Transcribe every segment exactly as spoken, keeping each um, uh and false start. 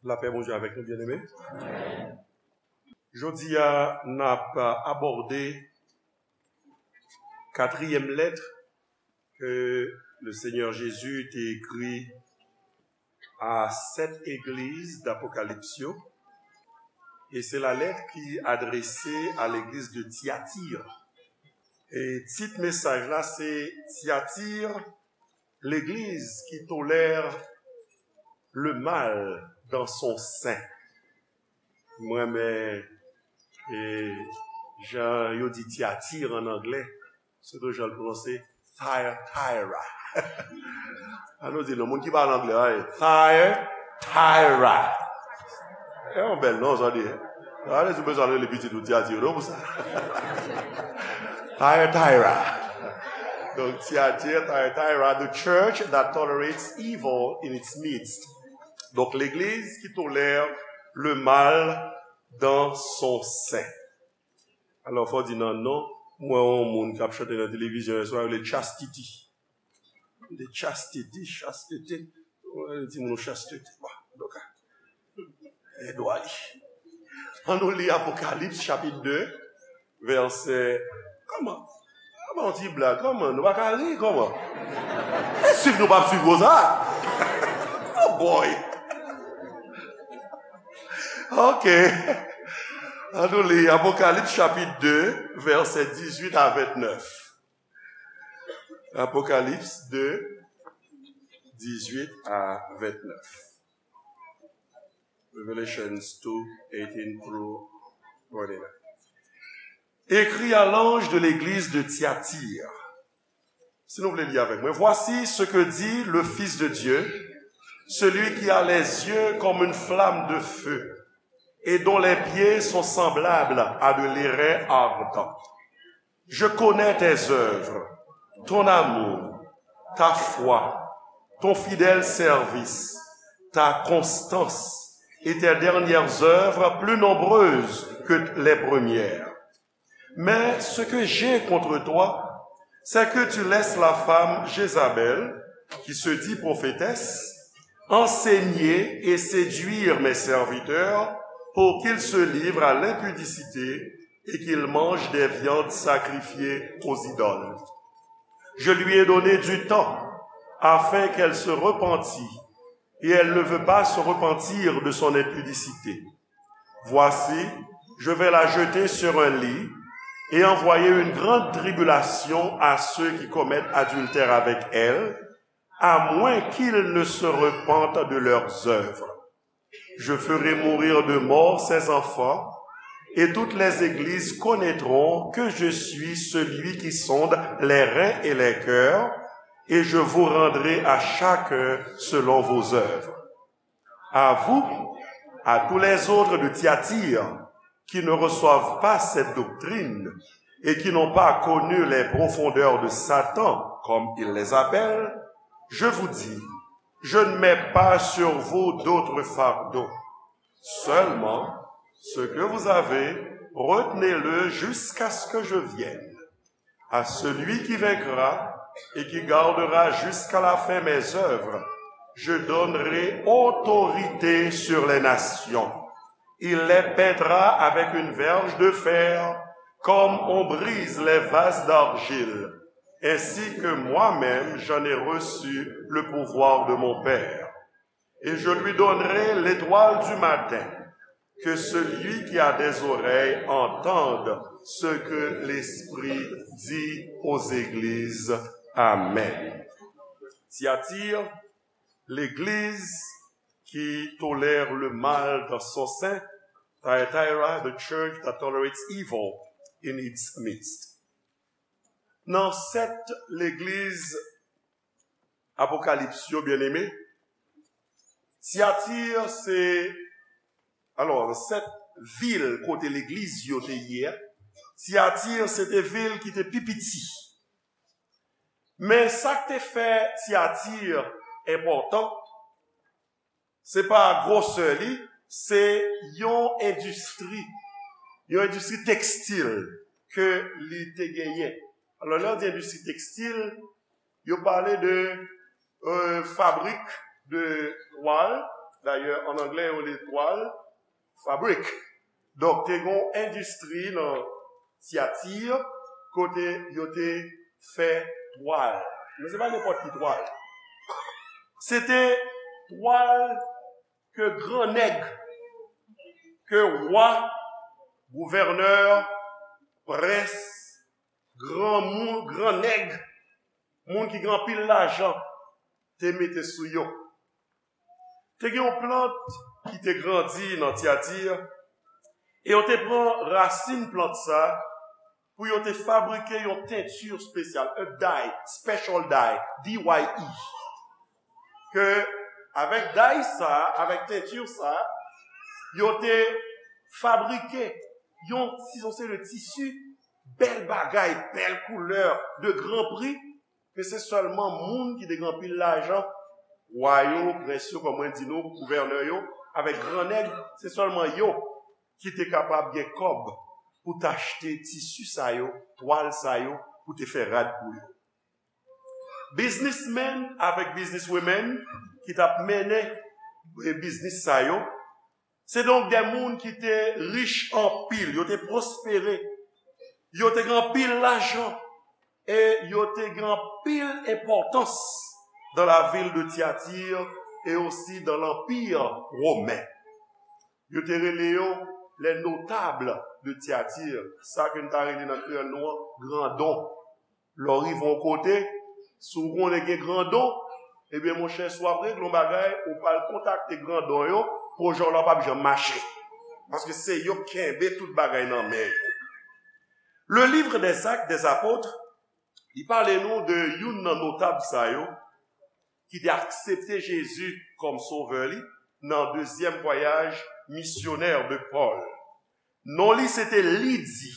Lapè Bondye avèk nou, byeneme. Jodi a, n ap abòde katriyèm lèt ke le Senyè Jezi te ekri a sèt egliz d Apokalips yo. E se la lèt ki adrese a legliz de Tiatir. E tit mesaj la se Tiatir, l'église qui tolère le mal dans son sein. Mwen renmen e jan yo di Tiatir an anglè, se tou jan l pwononse Thyatira. An nou di non, moun ki pale anglè a, Thyatira. E yon bèl non sa di. Alèz ou bezwen rele pitit ou Tiatir non pou sa. Thyatira. Donk Tiatir, Thyatira, the church that tolerates evil in its midst. Donk legliz ki tolère le mal dans son sein. Alò fò di nan non, mwen yon moun k ap chante nan televizyon yè swa, yo rele Chastity. De Chastity, Chastity. Mwen di moun Chastity. Bon, donk, e dwa li. An nou li Apokalips chapit de, vèsè, kòman? Kòman yon ti blag? Kòman? Nou pa ka ri, kòman? E swiv nou p ap swiv konsa? Oh boy! Ok. An nou li Apokalips chapit de, vèsè dizuit a ventnèf. Apokalips de, dizuit a ventnèf. Revelations two, eighteen through twenty-nine. Écrit à l'ange de l'église de Thyatire. Si nou vle li avèk mwen. Voici ce que dit le Fils de Dieu, celui qui a les yeux comme une flamme de feu et dont les pieds sont semblables à de l'airain ardent. Je connais tes œuvres, ton amour, ta foi, ton fidèle service, ta constance et tes dernières œuvres plus nombreuses que les premières. Mais ce que j'ai contre toi, c'est que tu laisses la femme Jézabel, qui se dit prophétesse, enseigner et séduire mes serviteurs pour qu'ils se livrent à l'impudicité et qu'ils mangent des viandes sacrifiées aux idoles. Je lui ai donné du temps afin qu'elle se repentît, et elle ne veut pas se repentir de son impudicité. Voici, je vais la jeter sur un lit et envoyer une grande tribulation à ceux qui commettent adultère avec elle, à moins qu'ils ne se repentent de leurs œuvres. Je ferai mourir de mort ses enfants, et toutes les églises connaîtront que je suis celui qui sonde les reins et les cœurs, et je vous rendrai à chacun selon vos œuvres. À vous, à tous les autres de Thyatire qui ne reçoivent pas cette doctrine et qui n'ont pas connu les profondeurs de Satan, comme il les appelle, je vous dis, je ne mets pas sur vous d'autre fardeau. Seulement, ce que vous avez, retenez-le jusqu'à ce que je vienne. À celui qui vaincra et qui gardera jusqu'à la fin mes œuvres, je donnerai autorité sur les nations. Il les peindra avec une verge de fer, comme on brise les vases d'argile, ainsi que moi-même j'en ai reçu le pouvoir de mon Père. Et je lui donnerai l'étoile du matin. Que celui qui a des oreilles entende ce que l'Esprit dit aux églises. Amen. Thyatire, l'église qui tolère le mal dans son sein. Thyatira, the church that tolerates evil in its midst. Nan sèt legliz Apokalips yo, byeneme, Tyatir se, alò, sèt vil kote legliz yo te ye a, Tyatir se te vil ki te pi piti. Men sa k te fè Tyatir enpòtan, se pa gwosè li, se yon endistri, yon endistri tekstil ke li te genyen. Alò, lè yo di endistri tekstil, yo pale de, euh, fabrik de twal, Dayè, an anglè, yo rele twal fabrik. Donk, te gen yon endistri nan Tyatir kote yo te fè twal. Men se pa nenpòt ki twal. Se te twal ke gran nèg, ke wa, gouvènè, prens, granmoun, gran nèg, moun ki gen anpil lajan, te mete sou yo. Te gen yon plant ki te grandi nan Tyatir, e yo te pran rasin plant sa pou yo te fabrike yon tenti espesyal, a dye, special dye, D Y E. Ke avèk dye sa, avèk tenti sa, yo te fabrike yon ti, yon seri de tisi, bèl bagay, bèl koulè, de gran pri, ke se sèlman moun ki te gen anpil lajan, wa yo, prens yo, kòm mwen di nou, gouvènè yo, avèk gran nèg, se sèlman yo ki te kapab gen kòb pou t achte tisi sa yo, twal sa yo, pou te fè rad pou yo. Biznismenn avèk bizniswimenn ki t ap mennen, e, biznis sa yo, se donk de moun ki te rich anpil, yo te pwospere, yo te gen anpil lajan, e yo te gen anpil enpòtans dans la ville de Thyatire et aussi dans l'Empire romain. Yo te rele yo les notables de Thyatire, sa ke n ta rele nan kreyòl nou an, grandon. Lè w rive yon kote, si w konnen gen grandon, ebyen, monchè, si w ap regle yon bagay, ou pral kontakte grandon yo, pwojè w la p ap janm mache. Paske se yo k kenbe tout bagay nan men yo. Le Livre des Actes des Apôtres, li pale nou de youn nan notab sa yo ki te aksepte Jezi kòm sovè li nan dezyèm vwayaj misyonè de Pòl. Non li se te Lidi.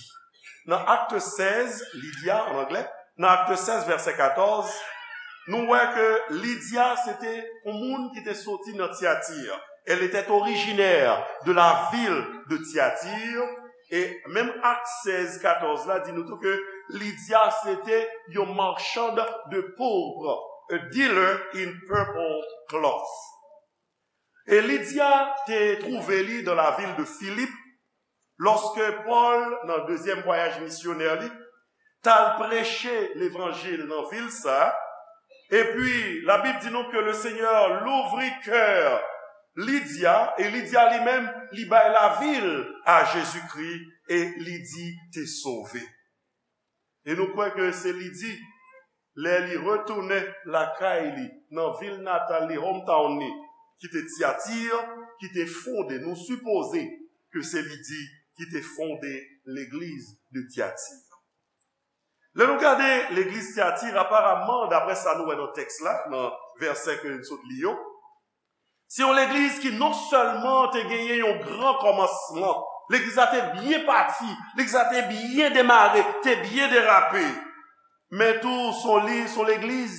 Nan Akte sèz, Lydia an anglè, nan Akte sèz, vèsè katòz, nou wè ke Lydia se te yon moun ki te soti nan Thyatire. Elle était originaire de la ville de Thyatire. E menm Ak sèz katòz la di nou tou ke Lydia se te yon marchand de pourpre, a dealer in purple cloth. E Lydia te twouve li dans la ville de Philippe, lòske Pòl, nan dezyèm vwayaj misyonè li, t al preche levanjil nan vil sa a. Epi, Labib di nou ke le Seigneur louvrit cœur Lydia, e Lydia li menm, li bay lavi l a Jezikri, e Lidi te sove. E nou kwè ke se Lidi, lè li retounen lakay li, nan vil natal li, hometown li, ki te Tyatir, ki te fonde, nou sipoze ke se Lidi ki te fonde legliz de Tyatir. Lè nou gade legliz Tyatir, aparamman, daprè sa nou wè nan tèks la, nan vèsè ke n sot li yo, se yon legliz ki non sèlman te genyen yon gran kòmansman, legliz la te byen pati, legliz la te byen demare, te byen derape, men tou se yon li, se yon legliz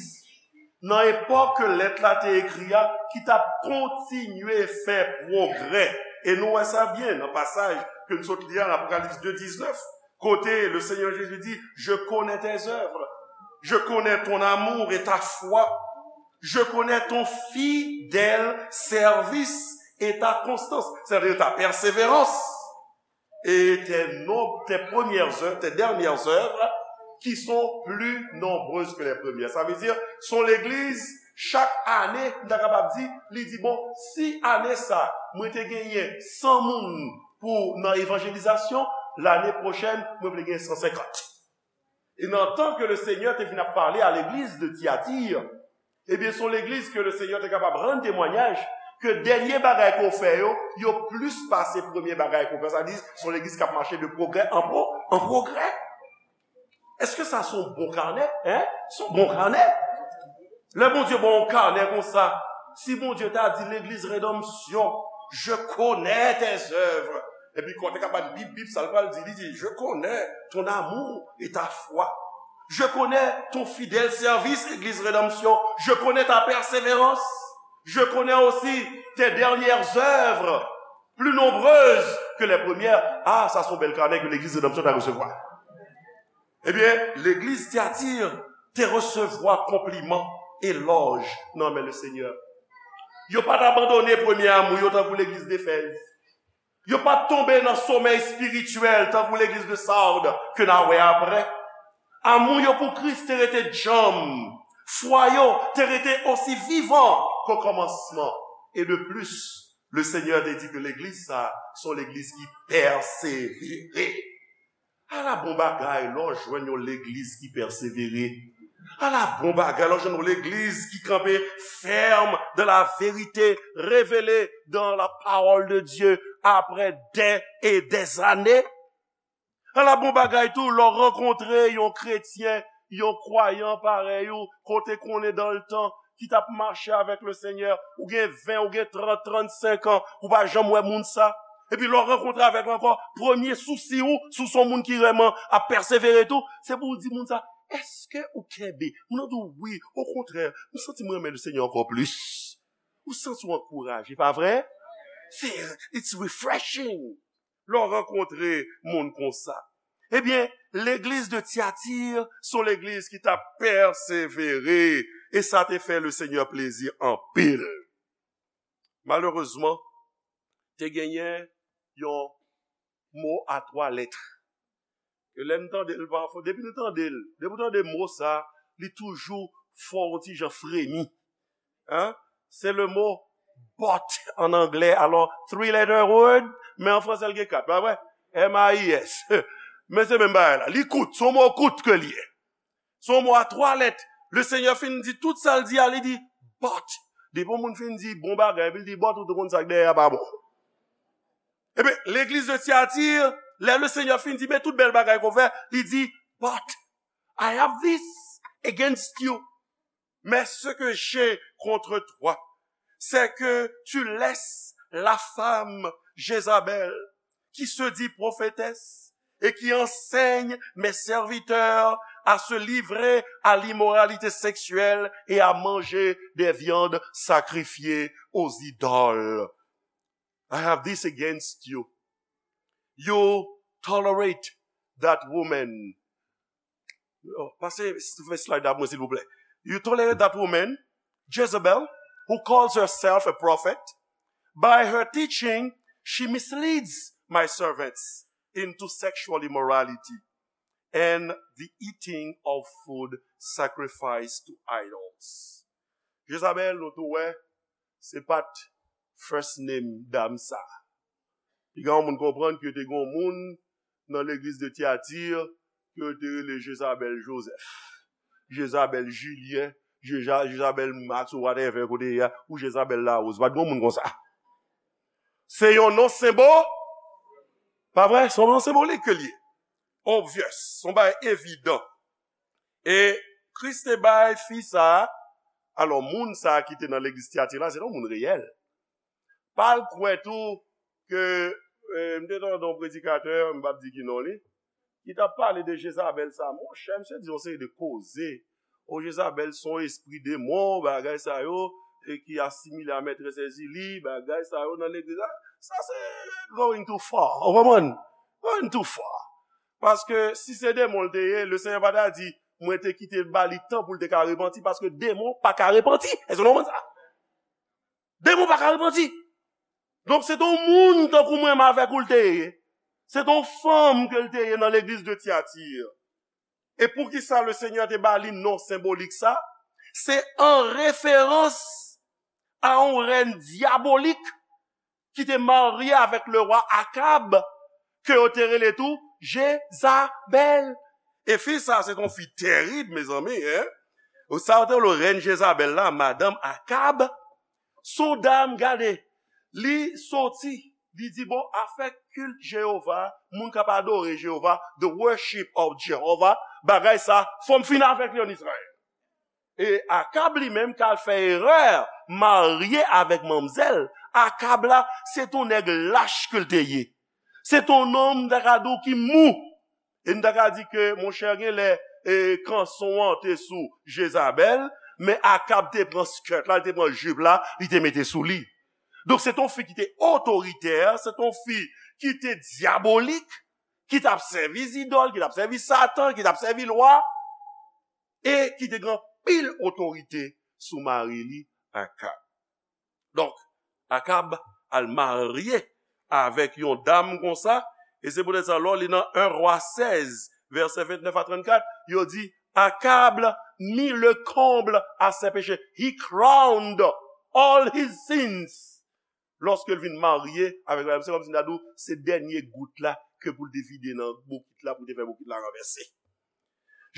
nan epòk ke lèt la te ekri a, ki t ap kontinye fè pwogrè. E nou wè sa byen nan pasaj ke n sot li a, nan Apokalips de diznèf, kote le Seigneur Jésus dit, je connais tes œuvres, je connais ton amour et ta foi, je connais ton fidèle service et ta constance, c'est-à-dire ta persévérance, et tes, nom- tes premières œuvres, tes dernières œuvres, qui sont plus nombreuses que les premières. Sa vle di, se yon legliz, chak ane, m ta kapab di, li di, bon, si ane sa, mwen te genyen san moun pou nan evanjelizasyon, lane pwochèn, mwen vle gen san senkant. E nan tan ke le Senyè te vin ap pale a legliz de Tyatir, ebyen, se yon legliz ke le Senyè te kapab rann temwayaj ke dènye bagay ke w fè yo, yo plis pase premye bagay ke w fè. Sa di, se yon legliz k ap mache de pwogrè an pwo-, an pwogrè. Èske sa se yon bon kanè? Hein? Se yon bon kanè. Lè Bondye ba w yon kanè konsa, si Bondye ta di legliz Redanmsyon, je connais tes œuvres. Epi kote ka bat bip bip, sa l pral di, li di, je connais ton amour et ta foi. Je connais ton fidèle service, Église Rédemption. Je connais ta persévérance. Je connais aussi tes dernières œuvres, plus nombreuses que les premières. Ah, sa se yon bèl kanè ke legliz Redanmsyon ta resevwa. Ebyen, legliz Tyatir te resevwa konpliman, elòj nan men le Senyè. Yo pa t abandone premye amou yo tankou legliz Efèz. Yo pa t tonbe nan somèy espirityèl tankou legliz de Sard ke n a wè apre. Amou yo pou Kris te rete djanm. Fwa yo te rete osi vivan ke okòmansman. E de plis, le Senyè te di ke legliz sa a se yon legliz ki pèsevere. Ala bon bagay lè w jwenn yon legliz ki pèsevere. Ala bon bagay lè w jwenn yon legliz ki kanpe fèm dans la vérité révélée dans la parole de Dieu après des et des années. Ala bon bagay tou lè w rankontre yon kretyen, yon kwayan parèy ou, kote konnen dans le temps, ki t ap mache avèk le Senyè, ou gen ven, ou gen trant, trannsenk an, ou pa janm wè moun sa. Epi lè w rankontre avèk l ankò, premye sousi ou, si w se yon moun ki vrèman ap pèsevere tou, se pou w di moun sa, èske ou kenbe? Moun nan di w, wi, okontrè, m santi m renmen le Senyè ankò plis. Ou santi w ankouraje, pa vre? Se, it's refreshing. Lè w rankontre moun konsa. Ebyen, legliz de Tyatir se yon legliz ki t ap pèsevere, e sa te fè le Senyè plezi anpil. Malerezman, te genyen yon mo a twa lèt. Ke lè n tande l pafwa, depi nou tande l, depi w tande mo sa, li toujou fè w yon ti jan fremi. Hein? Se le mo but an anglè. Alò, three letter word, men an fransè l gen kat, pa vre? M A I S. Men se menm bagay la. Li kout, se yon mo kout ke li ye. Se yon mo a twa lèt. Le Senyè fin di tout sa l di a, li di, but. Depi yon moun fin di bon bagay, epi l di but, ou te konn sa k dèyè a pa bon. Ebyen, legliz de Tyatir, lè le Senyè fin di, men tout bèl bagay ke w fè, li di, but I have this against you. Mais ce que j'ai contre toi, c'est que tu laisses la femme Jézabel, qui se dit prophétesse et qui enseigne mes serviteurs à se livrer à l'immoralité sexuelle et à manger des viandes sacrifiées aux idoles. I have this against you. You tolerate that woman. Oh, pase fè slide la pou mwen, silvouplè. You tolerate that woman, Jezebel, who calls herself a prophet. By her teaching, she misleads my servants into sexual immorality and the eating of food sacrificed to idols. Jezabel, nou tou wè, se pa t first name dam sa. Piga yon moun konprann ke te gen yon moun nan legliz de Tyatir ke yo te rele Jezabel Joseph, Jezabel Julien, Jeza- Jezabel Max ou whatever kote ye a, ou Jezabel Larose. Pa t gen yon moun konsa. Se yon non senbo, pa vre? Se yon non senbolik ke l ye. Obvious, se yon bagay evidan. E Kris te bay fi sa a, alò moun sa a ki te nan legliz Tyatir la, se te yon moun reyèl. Pa al kwè tou ke, eh, m te tande yon predikatè, m p ap di ki non li, ki t ap pale de Jezabèl sa. Monchè, misye di yon seri de koze. O, Jezabèl se yon espri demon, bagay sa yo, e ki asimile a mètrès Èzili, bagay sa yo nan legliz la. Sa se going too far. Ou konprann? Going too far. Paske si se demon l te ye, le Senyè pa ta di, mwen te kite l ba li tan pou l te ka repanti, paske demon pa ka repanti. Èske nou konprann sa? Demon pa ka repanti. Donk, se te yon moun tankou mwen menm avèk ou l te ye. Se te yon fanm ke l te ye nan legliz de Tyatir. E poukisa le Senyè te ba li non senbolik sa? Se an referans a yon rèn dyabolik ki te marye avèk lewa Akab, ke yo te rele tou Jezabèl. E fi sa, se te yon fi tèrib, mezanmi, en. Ou sa yo te rele rèn Jezabèl la, madanm Akab. Se yon dam, gade, li soti, li di, bon, afè kilt Jewova, moun k ap adore Jewova, the worship of Jehovah, bagay sa, fò m fin avèk li an Izrayèl. E Akab li menm k al fè erè marye avèk manmzèl. Akab la, se t on nèg lach ke l te ye. Se t on nonm, m ta ka di w, ki mou. E m ta ka di ke, monchè, genlè, e, kanson an te sou Jezabèl, men Akab te pran skirt la, li te pran jip la, li te mete sou li. Donk, se t on fi ki te otoritè, se t on fi ki te dyabolik, ki t ap sèvi zidòl, ki t ap sèvi Satan, ki t ap sèvi lwa, e ki te gen anpil otorite sou mari li, Akab. Donk, Akab al marye avèk yon dam konsa, e se poutèt sa, lè w li nan en Rwa sèz, vèsè ventnèf a trannkat, yo di, Akab mit le comble à ses péchés. He crowned all his sins. Lòske l vin marye avèk madam, se kòmsi m ta di w, se dènye gout la ke pou l te vide nan bokit la, pou l te fè bokit la ranvèse.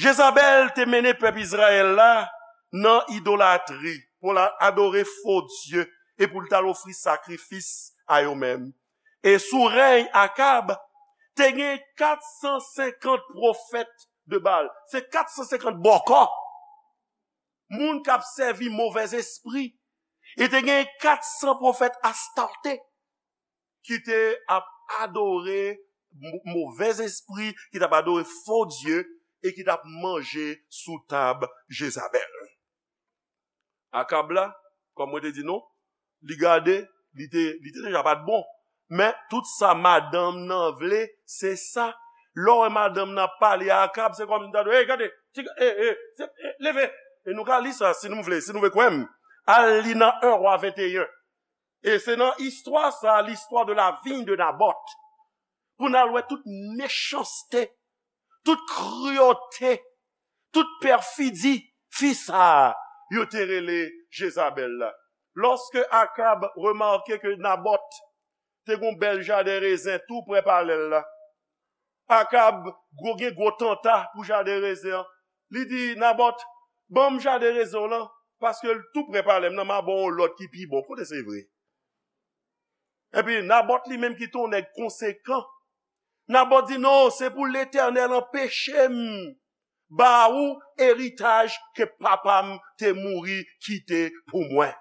Jezabèl te mennen pèp Izrayèl la nan idolatri, pou l adore fo dye, e pou l t al ofri sakrifis a yo menm. E sou rèy Akab, te gen kat san senkant pwofèt de Baal. Se kat san senkant bòkò. Moun k ap sèvi movèzespri. E te gen kat san pwofèt Astarte ki te ap adore mo- movèzespri, ki t ap adore fo dye, e ki t ap manje sou tab Jezabèl. Akab la, kòm mwen te di nou, li gade, li te, li te deja pa t bon. Men tout sa madanm nan vle, se sa. Lè w wè madanm nan ap pale a Akab, se kòmsi l ta di, hey, gade, ti, hey, hey, se, hey, leve. E nou ka li sa, si nou vle, si nou vle kwè m. Al li nan en Rwa venteyen. E se nan istwa sa, l'histoire de la vigne de Naboth, pou n al wè tout mechanste, tout kriyote, tout pèfidi fi sa a yo te rele Jezabèl la. Lòske Akab remake ke Nabòt te gen yon bèl jaden rezen tou prè palè l la, Akab gwo gen gwo tanta pou jaden rezen an. Li di Nabòt, ban m jaden rezen w lan, paske l tou prè palè m nan, m a ba w yon lòt ki pi bon. Kote se vre? Epi Nabòt li menm ki te yon nèg konsekan, Nabòt di, non, se pou Letènèl anpeche m ba ou eritaj ke papa m te mouri kite pou mwen.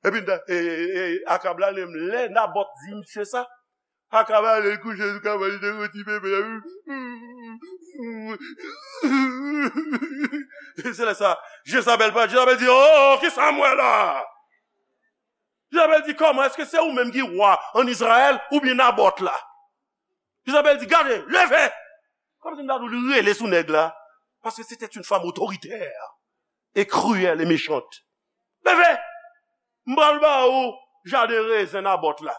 Epi e, e, e, Akab la, lè, lè Nabòt di misye sa, Akab ale l kouche sou kabann li, te roti bebe. Se lè sa, Jezabèl pa, Jezabèl di, oh, kisa m wè la? Jezabèl di, kòman, èske se ou menm ki wa ann Izrayèl oubyen Nabòt la? Jezabèl di, gade, leve! Kòmsi m ta di w li rele sou nèg la. Parce que c'était une femme autoritaire et cruelle et méchante. Leve! M pral ba ou jaden rezen Nabòt la.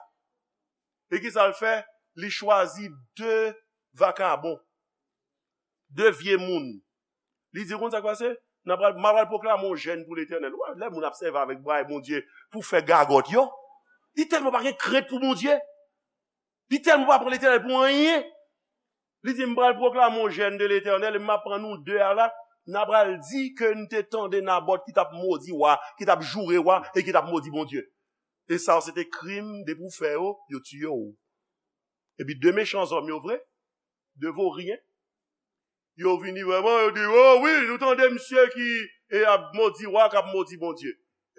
E kisa l fè? Li chwazi de vakabon, de vye moun. Li di, konn sa k pase? N a pral, m a pral pwoklame yon jèn pou Letènèl. Ou wè, lè moun ap sèvi avèk bagay Bondye pou fè gagòt yo, li tèlman pa gen krent pou Bondye. Li tèlman pa pran Letènèl pou anyen. Li di, m pral pwoklame yon jèn de Letènèl, e m ap pran nou de a la, n a pral di ke n te tande Nabòt ki t ap modi wa, ki t ap joure wa, e ki t ap modi Bondye. E sa yo se te krim, depi w fè yo, yo tiye w. Epi de mechan zòm yo vre, de voryen, yo vini vrèman, yo di, oh wi, nou tande misye ki e ap modi wa, k ap modi Bondye.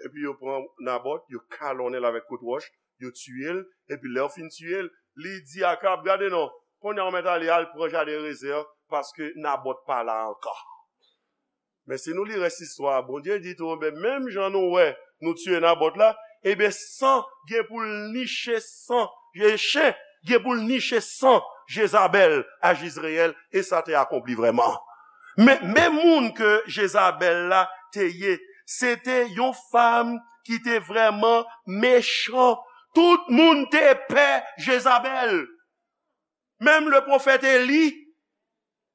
Epi yo pran Nabòt, yo kalonnen l avèk kout wòch, yo tiye l, epi lè yo fin tiye l, li di Akab, gade non, kounye a w mèt ale, al pran jaden rezen an, paske Nabòt pa la ankò. Men si nou li rès istwa a, Bondye di tou, ben, menm jan nou wè nou tiye Nabòt la, ebyen, san gen pou l niche san, e chen gen pou l niche san Jezabèl a Jizreyèl, e sa te akonpli vrèman. Men, men moun ke Jezabèl la te ye, se te yon fanm ki te vrèman mechan. Tout moun te pè Jezabèl. Menm le pwofèt Eli,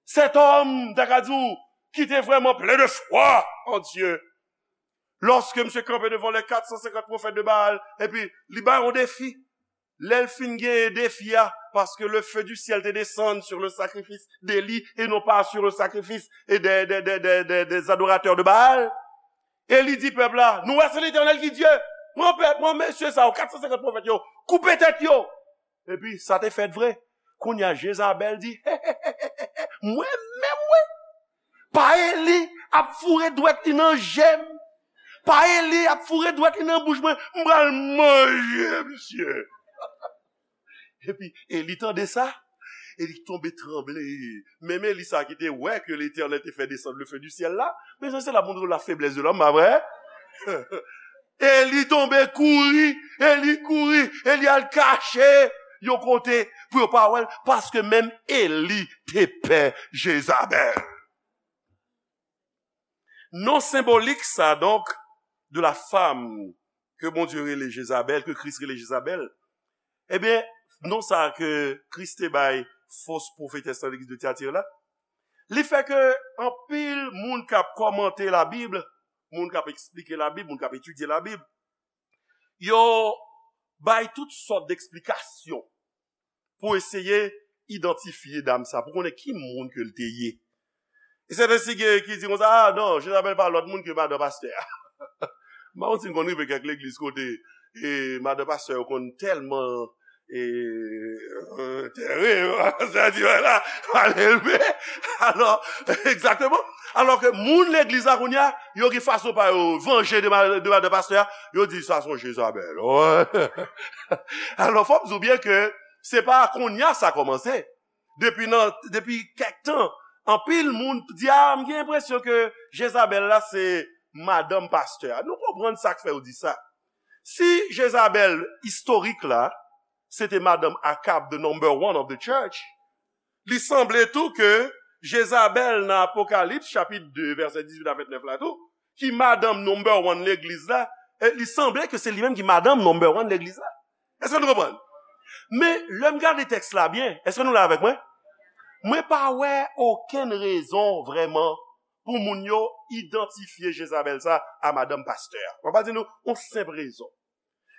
cet homme, m ta ka di w, ki te vrèman plen de fwa an Dye. Lòske misye kanpe devan lè kat san senkant pwofèt de Baal, epi li bay yon defi. Lè l fin genyen defi a, paske le feu du ciel te desann sur le sacrifice d'Élie et non pas sur le sacrifice et des, des, des, des, des, des adorateurs de Baal. Eli di pèp la, nou wè se Letènèl ki Dye. Pran pèp, pran mesye sa yo, kat san senkant pwofèt yo, koupe tèt yo. Epi sa te fèt vre. Kounye a Jezabèl di, mwen menm wi, pa Eli ap foure dwèt li nan je m, pa Eli ap foure dwèt li nan bouch mwen, m pral manje misye. Epi Eli tande sa, Eli tonbe tranble. Menm Eli sa ki te wè ke Letènèl te fè desann le feu du ciel la, mezanmi, se la pou nou la faiblesse de l'homme, pa vre? Eli tonbe kouri, Eli kouri, Eli al kache yon kote pou yo pa wè l, paske menm Eli te pè Jezabèl. Non senbolik sa, donk, de la femme ke Bondye rele Jezabèl, ke Kris rele Jezabèl, ebyen, non sa ke Kris te bay fos pwofetès nan legliz de Tyatir la, li fè ke anpil moun k ap kòmante Labib, moun k ap eksplike Labib, moun k ap etidye Labib, yo bay tout sòt deksplikasyon pou eseye idantifye dam sa, pou konnen ki moun ke l te ye. E sèten si gen ki di konsa, ah non, Jezabèl pa lòt moun ke madan pastè a. M pa konn si n konn rive kèk legliz kote e madan pastè yo konn tèlman e, e, tèrib, sa di la, mal elve. Alò, egzakteman. Alò ke moun legliz la kounye a, yo gen fason pa yo vanje de, ma- de madan pastè a, yo di sa se yon Jezabèl. Alò, fò m di w byen ke se pa kounye a sa kòmanse. Depi nan, depi kèk tan, anpil moun di, ah, m gen enpresyon ke Jezabèl la se madanm pastè a. Nou konprann sa k fè yo di sa. Si Jezabèl istorik la, se te madanm Akab, the number one of the church, li sanble tou ke Jezabèl nan Apokalips, chapit de, vèsè dizuit a vennèf la tou, ki madanm number one legliz la, e li sanble ke se li menm ki madanm number one legliz la. Èske nou konprann? Men, lè m gade tèks la byen, èske nou la avèk mwen? Mwen pa wè okenn rezon vrèman pou moun yo idantifye Jezabèl sa a madanm pastè a. Mwen pa di nou yon senp rezon.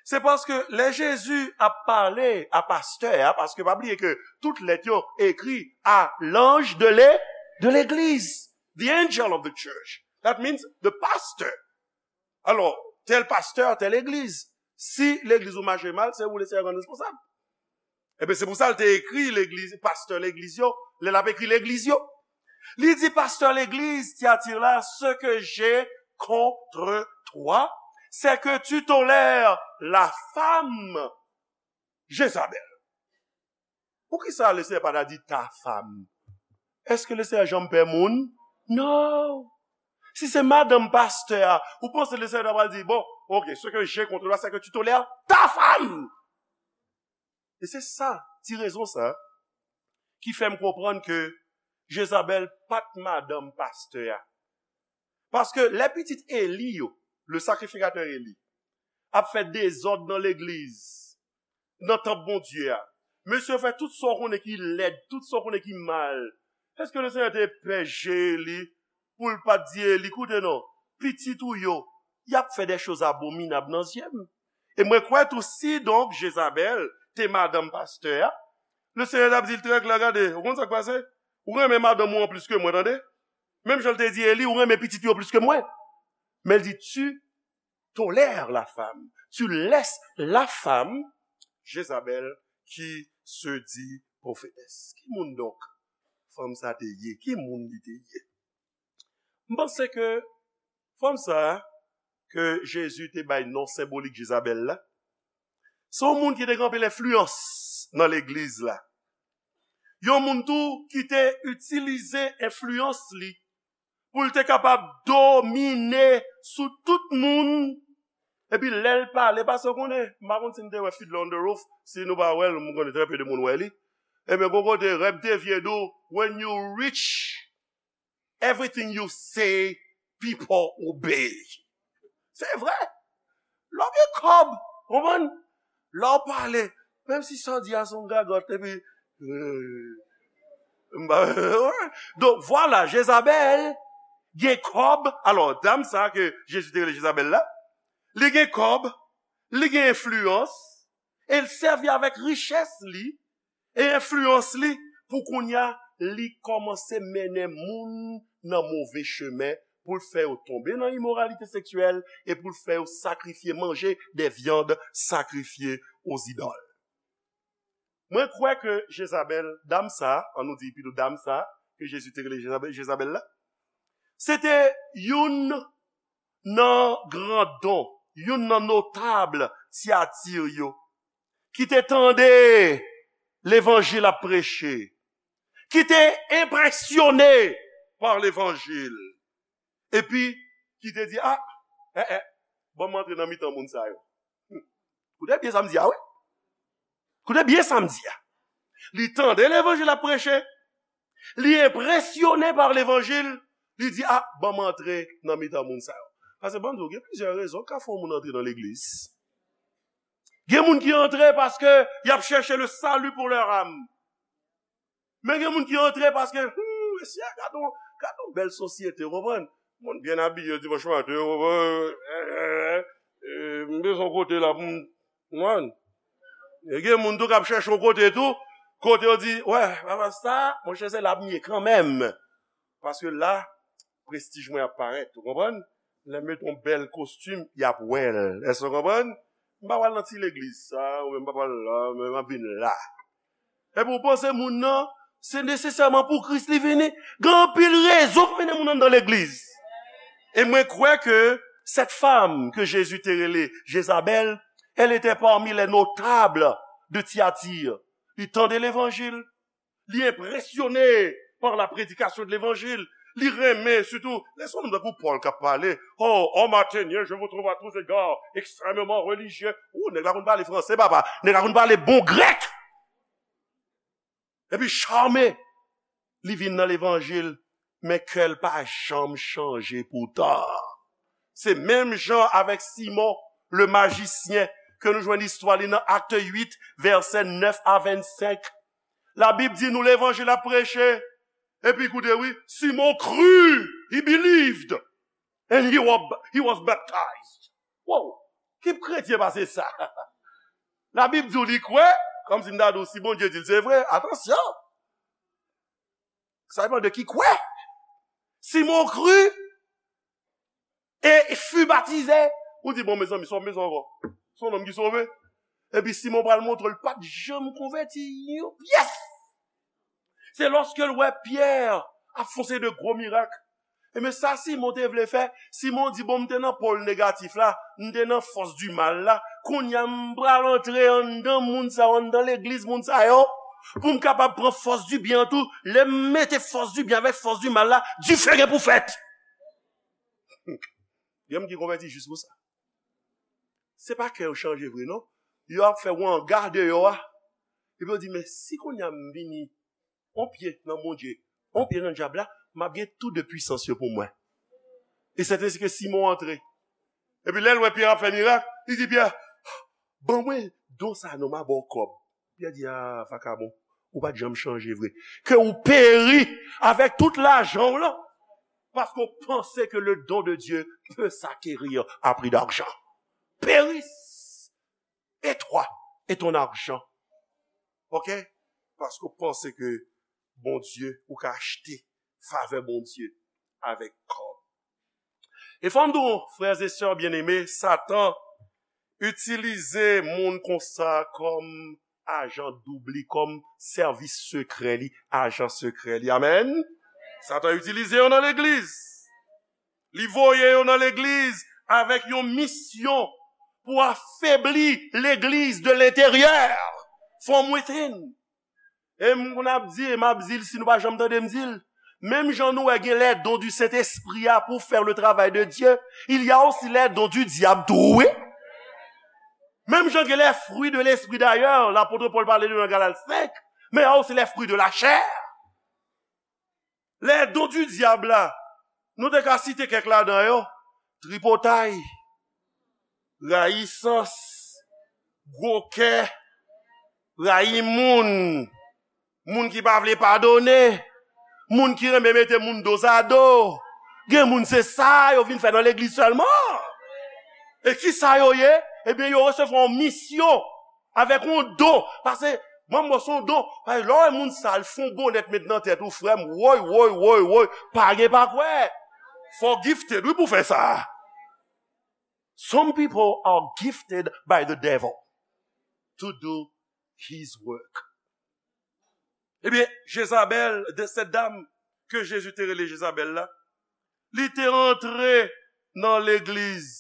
Se paske lè Jezi ap pale a pastè a, paske pa bliye ke tout lèt yo ekri a l'ange de le, de l'église, the angel of the church. That means the pastor. Alò, tèl pastè, tèl legliz. Si legliz ou mache mal, se ou Lesenyè rann responsab. Ebyen, se pou sa l te ekri legliz, pastè legliz yo, lè l ap ekri legliz yo. Li di pastè legliz Tyatir la, ce que j'ai contre toi, c'est que tu tolères la femme Jezabèl. Poukisa Lesenyè pa ta di ta femme? Èske Lesenyè janm pè moun? Non. Si se madanm pastè a, ou panse Lesenyè ta pral di, bon, ok, ce que j'ai contre toi, c'est que tu tolères ta femme. E se sa, ti rezon sa, ki fè m konprann ke Jezabèl pa t madanm pastè a. Paske lè pitit Eli yo, le sakrifikatè Eli, ap fè dezòd nan legliz, nan tanp Bondye a, mesye yo fè tout sa w konnen ki lèd, tout sa w konnen ki mal. Èske Lesenyè te pè je Eli pou l pa t di Eli, koute non, pitit ou yo, y ap fè des choses abominables nan zye m? E mwen kwè tou, si donk Jezabèl te madanm pastè a, Lesenyè t ap di l trè klè, gade, ou konn sa k pase? Ou renmen madanm ou an plis ke mwen, tande? Menm jan l te di Eli, ou renmen pitit yo plis ke mwen. Men l di, tu tolères la femme, tu laisses la femme, Jezabèl, qui se dit prophétesse. Ki moun donk fanm sa te ye? Ki moun li te ye? M panse ke fanm sa ke Jezi te bay non senbolik Jezabèl la, se yon moun ki te gen anpil enfliyans nan legliz la. Yon moun tou ki te itilize enfliyans li pou l te kapab domine sou tout moun. Epi lè l pale, paske w konnen, m pa konn si n te wè Fiddler on the Roof, si nou pa wè l, m konnen trè pe de moun wè li. Ebyen, gon kote Reb de Vye di w, when you rich, everything you say, people obey. Se vre. Lè w gen kòb, konprann? Lè w pale, menm si sa w di a se yon gagòt, epi, euh, m pa, donk, vwala, Jezabèl gen kòb. Alò, dam sa ke Jezi te rele Jezabèl la, li gen kòb, li gen enfliyans, e l sèvi avèk richès li e enfliyans li pou kounye a, li kòmanse mennen moun nan move chemen, pou l fè yo tonbe nan imoralite seksyèl e pou l fè yo sakrifye, manje des viandes sacrifiées aux idoles. Mwen kwè ke Jezabèl, dam sa, an nou di pito dam sa, ke Jezi te rele Jezabèl, Jezabèl la, se te youn nan grandon, youn nan notab Tyatir yo, ki te tande levanjil ap preche, ki te enpresyone pa levanjil, epi ki te di, ah, eh, eh, ban m antre nan mitan moun sa yo. Hmm. Koute byen sa m di a, wi. Koute byen sa m di a. Li tande levanjil ap preche, li enpresyone pa levanjil, li di, ah, ban m antre nan mitan moun sa yo. Paske ban m di w, gen plizyè rezon k ka fè yon moun antre nan legliz. Gen moun ki antre paske y ap chèche le salut pour leur âme. Men gen moun ki antre paske, hmm, mesye, gade yon, gade yon bèl sosyete, w konprann? Moun byen abiye dimanch maten, w konprann? Eh, eh, eh, eh, m bezwen yon kote la pou m, w konprann? E gen moun tou k ap chèche yon kote tou, kote yo di, wè, papa sa, monchè, se la m ye kanmenm. Paske la, prestij mwen ap parèt, ou konprann? Lè m met yon bèl kostim, y ap wè l. Èske w konprann? M pa pral nan ti legliz sa, oubyen m pa pral la, men m ap vin la. Epi w panse moun nan, se nesesèman pou Kris li vini? Gen anpil rezon k mennen moun anndan legliz. E mwen kwè ke cette femme que Jésus te rele Jezabèl, elle était parmi les notables de Thyatire. Li tande levanjil, li enpresyone par la prédication de l'évangile. Li renmen, sitou, lè se yon nonm tankou Pòl k ap pale. Oh, homme athénien, je vous trouve à tous égards extrêmement religieux. Ou, nèg la konn pale franse, papa. Nèg la konn pale bon grèk. Epi chame. Li vin nan levanjil, men kè l pa janm chanje poutan. Se menm jan avèk Simon, le majisyen, ke nou jwenn istwa li nan Acte huit, vèsè nèf a vennsenk. Labib di nou levanjil ap preche. Epi koute wi, Simon kri, he believed, and he was, he was baptized. Wow, ki kretyen pase sa? Labib di w li kwè, kòmsi m ta di w si Bondye di l se vre, atansyon. Sa depann de ki kwè. Simon kri, et fut baptisé. Ou di, bon, mezanmi, sa w bezwen ankò? Se yon nonm ki sove. Epi Simon pral montre l pa t janm konvèti yon pyès. Se lòske l wè Pyè ap fè yon seri de gwo mirak. Ebyen, sa Simon te vle fè, Simon di, bon, m te nan pòl negatif la, m te nan fòs di mal la, kounye a m pral antre anndan moun sa yo, anndan legliz moun sa yo, pou m kapab pran fòs di byen an tou. Lè m mete fòs di byen avèk fòs di mal la, dife gen pou fèt. Gen moun ki konvèti jis pou sa. Se pa kè yo chanje vre, non. Yo ap fè wanga deyò a. Epi yo di, men si kounye a m vini, on pye nan Bondye, on pye nan dyab la, m ap gen tou de pwisans yo pou mwen. E sèten se ke Simon antre. Epi lè l wè Pyè ap fè mirak, li di Pyè, ban mwen don sa non, m a ba w kòb. Pyè di, a, vakabon, ou pa t janm chanje vre. Ke ou peri avèk tout lajan w lan, paske w panse ke le don de Dieu peut s'acquérir à prix d'argent. Périsse, et toi, et ton argent. Ok? Paske w panse ke Bondye, ou ka achte favè Bondye avèk kòb. E fò m di w, frères et sœurs bien-aimés, Satan itilize moun konsa kòm ajan doub li, kòm sèvis sekrè li, ajan sekrè li. Amèn. Satan itilize yo nan legliz. Li voye yo nan legliz avèk yon misyon pou afebli legliz de lenteryè, from within. E m konn ap di, e m ap di l, si nou pa janm tande m di l, menm jan nou wè gen les dons du Saint-Esprit a pour faire le travail de Dieu, il y a aussi les dons du diable tou, wi. Menm jan gen les fruits de l'esprit d'ailleurs, lapot Pòl pale de yo nan Galat senk, men y a aussi les fruits de la chair. Les dons du diable la, nou te ka site kèk ladan yo, tripotay, rayisans, gwo kè, rayi moun, moun ki pa vle padone, moun ki renmen mete moun dozado. Gen moun se sa yo vin fè nan legliz sèlman. E ki sa yo ye? Ebyen, yo resevwa yon misyon avèk yon don. Paske, manm mwen se yon don. Paske lè w wè moun sa, l fè yon bonèt met nan tèt ou, frè m, woy, woy, woy, woy, pa gen pa kwè. Fò w gifted, wi, pou fè sa. Some people are gifted by the devil to do his work. Ebyen, Jezabèl, de cette dame ke Jezi te rele Jezabèl la, li te antre nan legliz.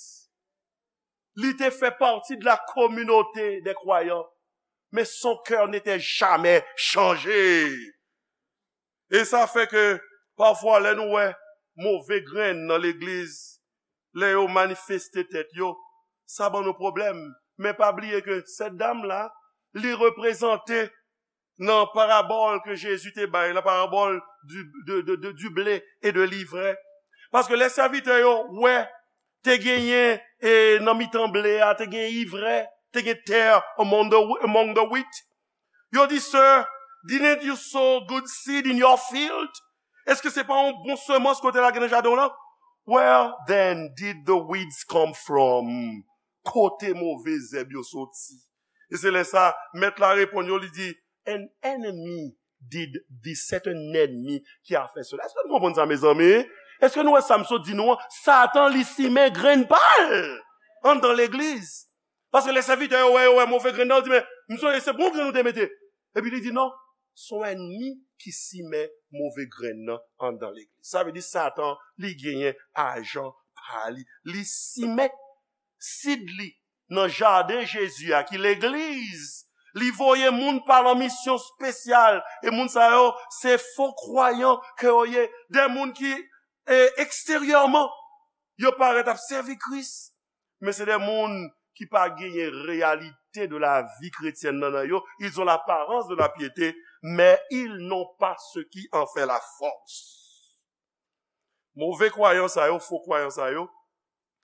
Li te fè pati de la communauté des croyants, mais son cœur n'était jamais changé. E sa fè ke pafwa lè nou wè move grenn nan legliz, lè yo manifeste tèt yo, sa ban nou pwoblèm. Men pa bliye ke sèt dam la, li reprezante nan parabòl ke Jezi te bay la, parabòl du, de, de, de, du blé et de l'ivraie. Paske lè sèvitè yo wè te genyen e, nan mitan ble a, te gen ivrè, te gen tè among the, among the wheat. Yo di, "Sir, didn't you sow good seed in your field?" Èske se pa yon bon semans ke w te lage nan jaden w lan? "Where then did the weeds come from?" Kote move zèb yo soti? E se lè sa, mèt la reponn yo, li di, "An enemy did this." Se te yon ènmi ki a fè sela. Èske nou konprann sa, mezanmi? Èske nou wè sa m sot di nou an? Satan, li simen grenn pa l anndan legliz. Paske lè sèvitè yo wè, yo wè move grenn nan, yo di, "Men, m sonje se bon grenn nou te mete." Epi li di, "Non, se yon ènmi ki simen move grenn nan anndan legliz." Sa vle di Satan, li genyen ajan pa li. Li simen sid li nan jaden Jezi a, ki legliz. Li voye moun pa l an misyon espesyal. E moun sa yo, se fo kwayan ke yo ye. De moun ki, e, eksteryèman, yo parèt ap sèvi Kris. Men se de moun ki pa genyen reyalite de la vie chrétienne nan, nan yo. Ils ont l'apparence de la piété, mais ils n'ont pas ce qui en fait la force. Move kwayan sa yo, fo kwayan sa yo,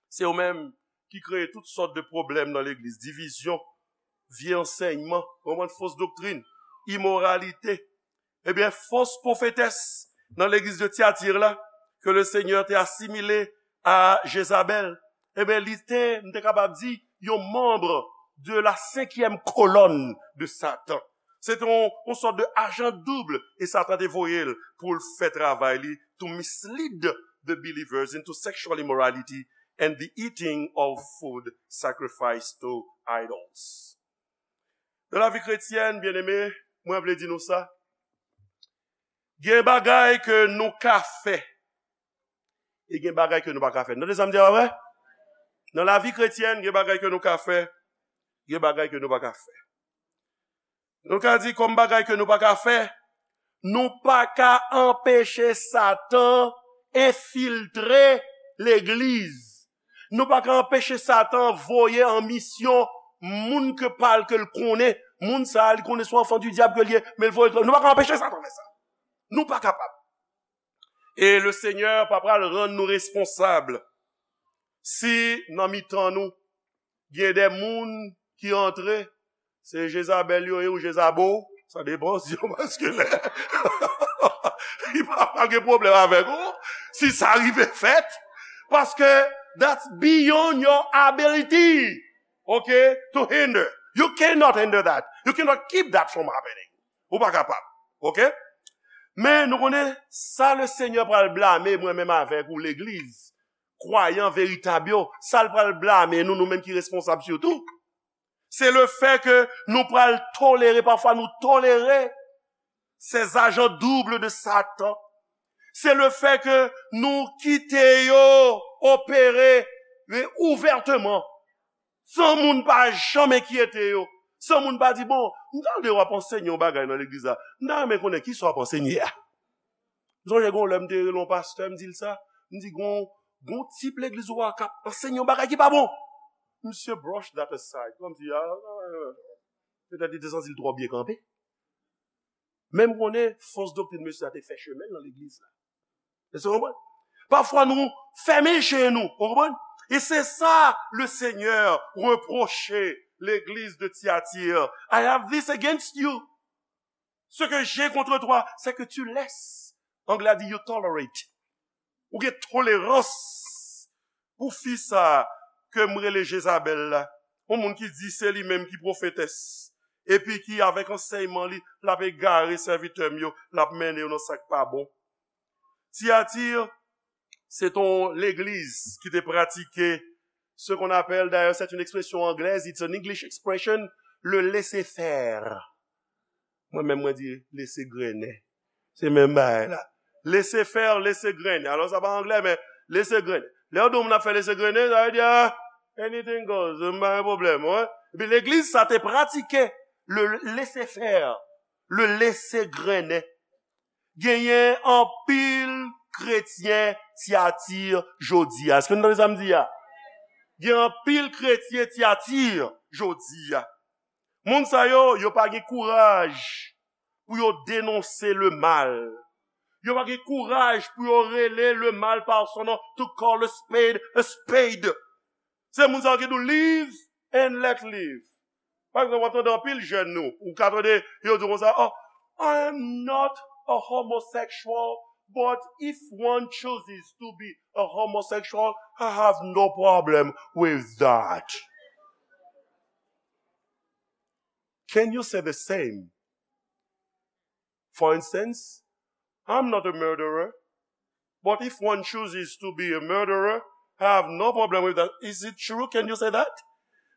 se yo menm ki kreye tout sòt de pwoblèm nan legliz, divizyon, vye ansèyman, konprann, fos doktrin, imoralite. Ebyen, fos pwofetès nan legliz de Tyatir la, ke le Senyè te asimile a Jezabèl, ebyen, li te, m te kapab di, yon manm de la senkyèm kolòn de Satan. Se te yon, yon sòt de ajan doub, e Satan te voye l pou l fè travay li, to mislead the believers into sexual immorality and the eating of food sacrificed to idols. Nan lavi kretyèn, byeneme, mwen vle di nou sa. Gen bagay ke nou ka fè, e gen bagay ke nou pa ka fè. Tande sa m di a, pa vre? Nan lavi kretyèn, gen bagay ke nou ka fè, gen bagay ke nou pa ka fè. Nou ka di kòm bagay ke nou pa ka fè, nou pa ka anpeche Satan enfiltre legliz. Nou pa ka anpeche Satan voye an misyon moun ke pa l ke l konnen. Moun sa a, li konnen se yon anfan di dyab ke l ye, men l voye l. Nou pa ka anpeche Satan fè sa. Nou pa kapab. E le Senyè pa pral rann nou responsab si nan mitan nou, gen de moun ki antre, se Jezabèl yo ye ou Jezabo, sa depann si yo maskilen. Li pa pral gen pwoblèm avèk ou, si sa rive fèt, paske that's beyond your ability, okay, to hinder. You cannot hinder that. You cannot keep that from happening. Ou pa kapab. Oke? Men nou konnen sa le Senyè pral blame mwen menm avèk ou legliz, kwayan veritab yo, sa l pral blame nou, nou menm ki responsab sitou, se le fè ke nou pral tolere, pafwa nou tolere ces agents doubles de Satan. Se le fè ke nou kite yo opere, e, ouvèteman, san moun pa janm enkyete yo, san moun pa di, "Bon, m tande w ap ansenye yon bagay nan legliz la, m ta renmen konnen kisa w ap ansenye a." M sonje gen yon lè m te rele yon pastè, m di l sa, m di, "Gon, gon tip legliz ou a k ap ansenye yon bagay ki pa bon." Misye brush that aside, kòmsi, ah, petèt li te santi l twò byen kanpe. Men m konnen fos doktrin mesye a te fè chemen l nan legliz la. Èske w konprann? Pafwa nou fèmen je nou, w konprann? E se sa le Senyè repwoche legliz de Tyatir. "I have this against you. Ce que j'ai contre toi, c'est que tu laisses." Anglè a di, "You tolerate." Ou gen tolerans pou fi sa a ke m rele Jezabèl la. Yon moun ki di se li menm ki pwofetès. Epi ki avèk ansèyman li, l ap egare sèvitè m yo, l ap mennen yo nan sa k pa bon. Tyatir, se t on legliz ki te pratike ce qu'on appelle, d'ailleurs, c'est une expression anglaise, it's an English expression, le laissez-faire. Mwen menm, mwen di, lese grennen. Se menm bagay la. Lese fè, lese grennen. Alò, sa pa anglè, men lese grennen. Lè yo di w moun ap fè lese grennen, sa vle di, ah, anything goes, m pa gen pwoblèm, wi. Epi legliz sa te pratike le laisser-faire, le lese grennen. Genyen anpil kretyen Tyatir jodi a. Èske nou tande sa m di a? Gen anpil kretyen Tyatir jodi a. Moun sa yo, yo pa gen kouraj pou yo denonse le mal. Yo pa gen kouraj pou yo rele le mal par son nom, to call a spade a spade. Se moun sa yo ki di w live and let live. Pa egzanp, w ap tande anpil jèn nou, ou ka tande yo di konsa, "Oh, I am not a homosexual, but if one chooses to be a homosexual, I have no problem with that." Can you say the same? For instance, "I'm not a murderer, but if one chooses to be a murderer, I have no problem with that." Is it true? Can you say that?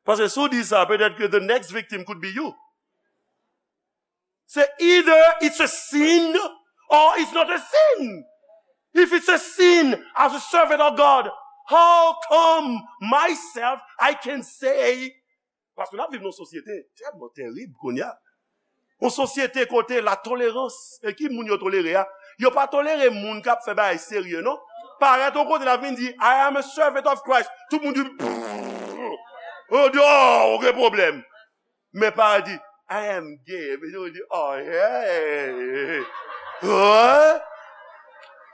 Paske si w di sa, petèt ke the next victim could be you. Se either it's a sin or it's not a sin. If it's a sin, as a servant of God, how come myself I can say, paske n ap viv nan yon sosyete tèlman terib kounye a. Yon sosyete kote la tolerans, e ki moun yo tolere a? Yo pa tolere moun k ap fè bagay serye, non. Parèt yon kote, l ap vin di, "I am a servant of Christ." Tout moun di, "Pff." Yo di, "Oh, okenn pwoblèm." Men pa di, "I am gay." Men yo di, "Oh, hey." Hein?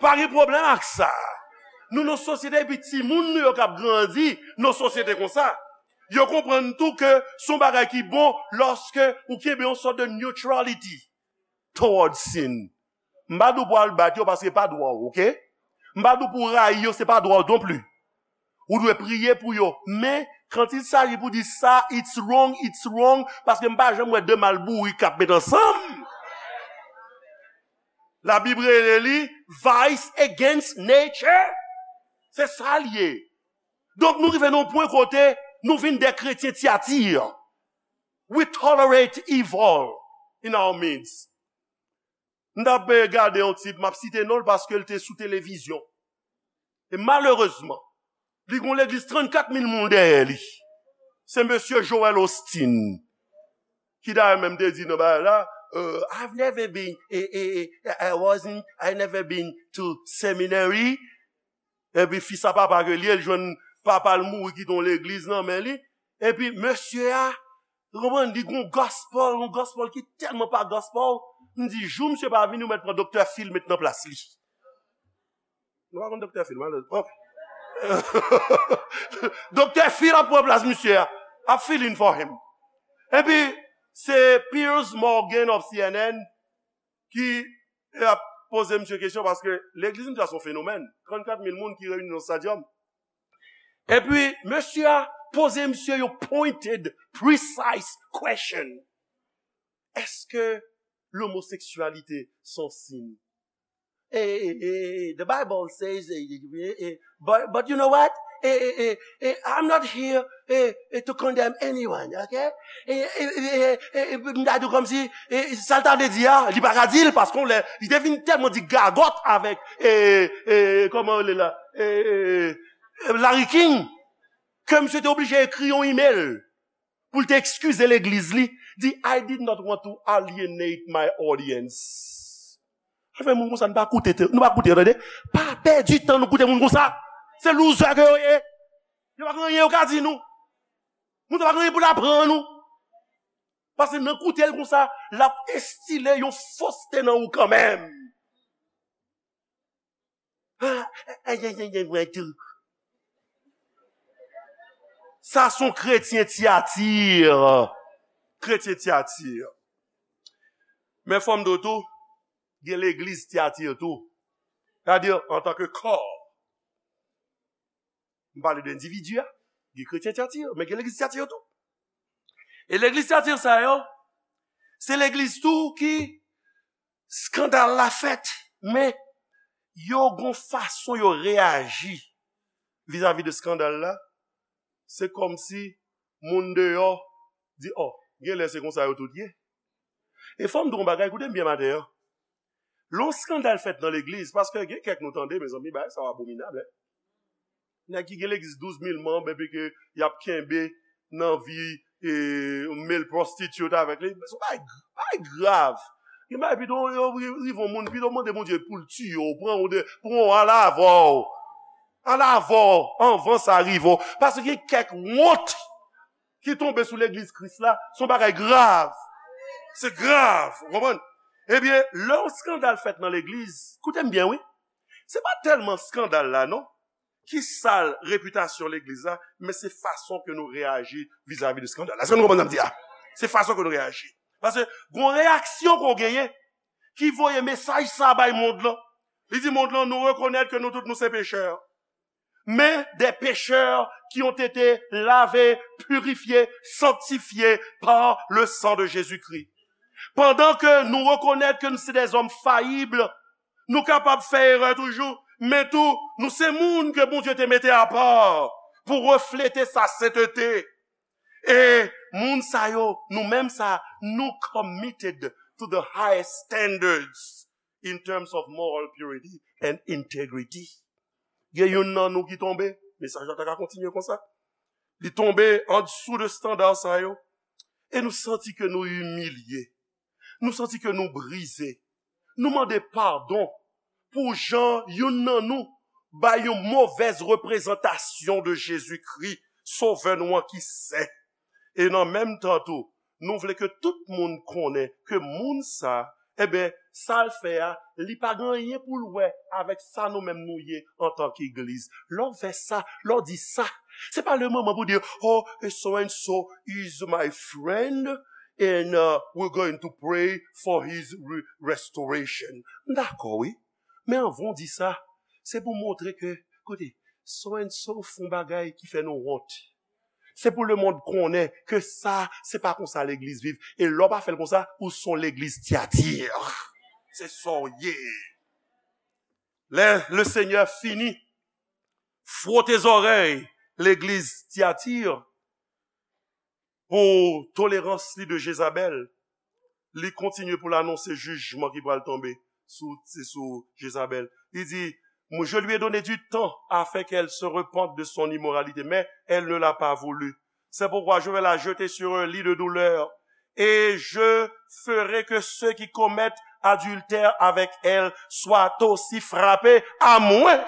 Pa gen pwoblèm ak sa. Nou nan sosyete, epi timoun nou yo k ap grandi nan sosyete konsa. Yo konprann tou ke se yon bagay ki bon lòske ou kenbe yon sòt de neutrality towards sin. M pa di w pou al bat yo paske se pa dwa w, oke? M pa di w pou w rayi yo, se pa dwa w non pli. Ou dwe priye pou yo. Men, quand il s'agit pou di sa, it's wrong, it's wrong, paske m pa janm wè de mal bourik k ap met ansanm. Labib rele li vice against nature. Se sa l ye. Donk, nou rive nan yon pwen kote nou vin de kretyen Tyatir. We tolerate evil in our midst. M t ap, eh, gade yon tip, m ap site non l paske l te sou televizyon. E malerezman, li gon legliz trannkat mil moun dèyè li. Se mesye Joel Osteen ki dayè menm te di nan bagay la, euh, "I've never been, eh, eh, eh, I wasn't, I never been to seminary." Epi fis a papa ke li ye, l jwenn papa l mouri kite yon legliz nan men li. Epi mesye a, ou konprann, li gon gospel, yon gospel ki tèlman pa gospel. M di, jou misye pa vini, ou mèt pran Doktè Phil met nan plas li. Nou pa konn Doktè Phil, malè. Ok. Doktè Phil ap pran plas misye a. Ap fill in for him. Epi, se Piers Morgan of C N N ki ap poze misye kesyon paske legliz misye a se yon fenomèn. Trannkat mil moun ki reyini nan stadium. Epi, mesye a poze misye yon pointed, precise question. Èske lomoseksyalite se yon sin? Eh, eh, eh, eh, the Bible says, eh, eh, eh, eh, but, but you know what? Eh, eh, eh, eh, I'm not here, eh, eh, to condemn anyone, okay? Eh, eh, eh, eh, eh, eh, m ta di w kòmsi, eh, sa l ta vle di a, li pa ka di l, paske on lè, li te vin tèlman di gagòt avèk, eh, eh, kòman l rele la? Eh, eh, eh, Larry King, ke misye te oblije ekri yon email pou l te ekskize legliz li, di, "I did not want to alienate my audience." Sa fè moun konsa, nou pa koute, nou pa koute, tande. Pa pèdi tan nou koute moun konsa. Se loser ke yo ye. Yo pa gen anyen yo ka di nou. Moun sa pa gen anyen pou l aprann nou. Paske nan koute l konsa, l ap enstile yon foste nan ou kanmenm. Ah, eh, eh, eh, eh, eh, mwen tou. Sa se yon kretyen Tyatir. Kretyen Tyatir. Men fò m di w tou, gen legliz Tyatir tou. Sètadi, antanke kò. M pale de endividi a, gen kretyen Tyatir, men gen legliz Tyatir tou. E legliz Tyatir sa yo, se legliz tou ki eskandal la fèt, men yo gon fason yo reyaji vizavi de eskandal la. Se kòmsi moun deyò di, "Oh, genlè se konsa yo tout ye." E fò m di w yon bagay, koute m byen maten an. Lè yon eskandal fèt nan legliz, paske gen kèk nou tande, mezanmi, bagay sa yo abominab, en. Nèg ki gen legliz douz mil manm, epi ke y ap kenbe nan vi, e, male prostitute avèk li. Se yon bagay, bagay grav. Gen bagay pito yo ri-, rive yon moun, pito mande Bondye pou l tiye w, pran w de, pran w al avè w. Al avè w, anvan sa rive w. Paske gen kèk wont ki tonbe sou legliz Kris la, se yon bagay grav. Se grav, ou konprann? Ebyen, lè yon skandal fèt nan legliz, koute m byen, wi. Se pa tèlman skandal la, non, ki sal repitasyon legliz la, men se fason ke nou reyaji vizavi de skandal la. Èske nou konprann sa m di a? Se fason ke nou reyaji. Paske gon reyaksyon ke w genyen ki voye mesaj sa bay mond lan. Li di mond lan, nou rekonèt ke nou tout nou se pechè. Mais des pécheurs qui ont été lavés, purifiés, sanctifiés par le sang de Jésus-Christ. Pandan ke nou rekonèt ke nou se dèzòm fayib, nou kapab fè erè toujou, men tou, nou se moun ke Bondye te mete apa pou reflete sa sentete. E moun sa yo, nou menm sa, nou committed to the highest standards in terms of moral purity and integrity. Gen youn nan nou ki tonbe, mesaj la ta ka kontinye konsa. Li tonbe andsou de estanda sa yo. E nou santi ke nou imilye. Nou santi ke nou brize. Nou mande padon pou jan youn nan nou bay yon movèz reprezantasyon de Jezikri, Sovè nou an ki sen. E nan menm tan tou, nou vle ke tout moun konnen ke moun sa, enben, sa l fè a, li pa gen anyen pou l wè avèk sa nou menm nou ye antanke egliz. Lè w fè sa, lè w di sa, se pa le moman pou di, oh, so and so is my friend, and uh, we're going to pray for his re- restoration. M dakò, wi. Men anvan w di sa, se pou montre ke, koute, so and so fè yon bagay ki fè nou wont. Se pou lemonn konnen ke sa, se pa konsa legliz viv. E lè w pa fè l konsa, ou se yon legliz Tyatir. Se sa w ye. Lè Lesenyè fini fwote zòrèy legliz Tyatir pou tolerans li de Jezabèl, li kontinye pou l anonse jijman ki pral tonbe sou, se sou Jezabèl. Li di, je lui ai donné du temps afin qu'elle se repente de son immoralité, mais elle ne l'a pas voulu. C'est pourquoi je vais la jeter sur un lit de douleur, et je ferai que ceux qui commettent adultère avec elle soient aussi frappés, à moins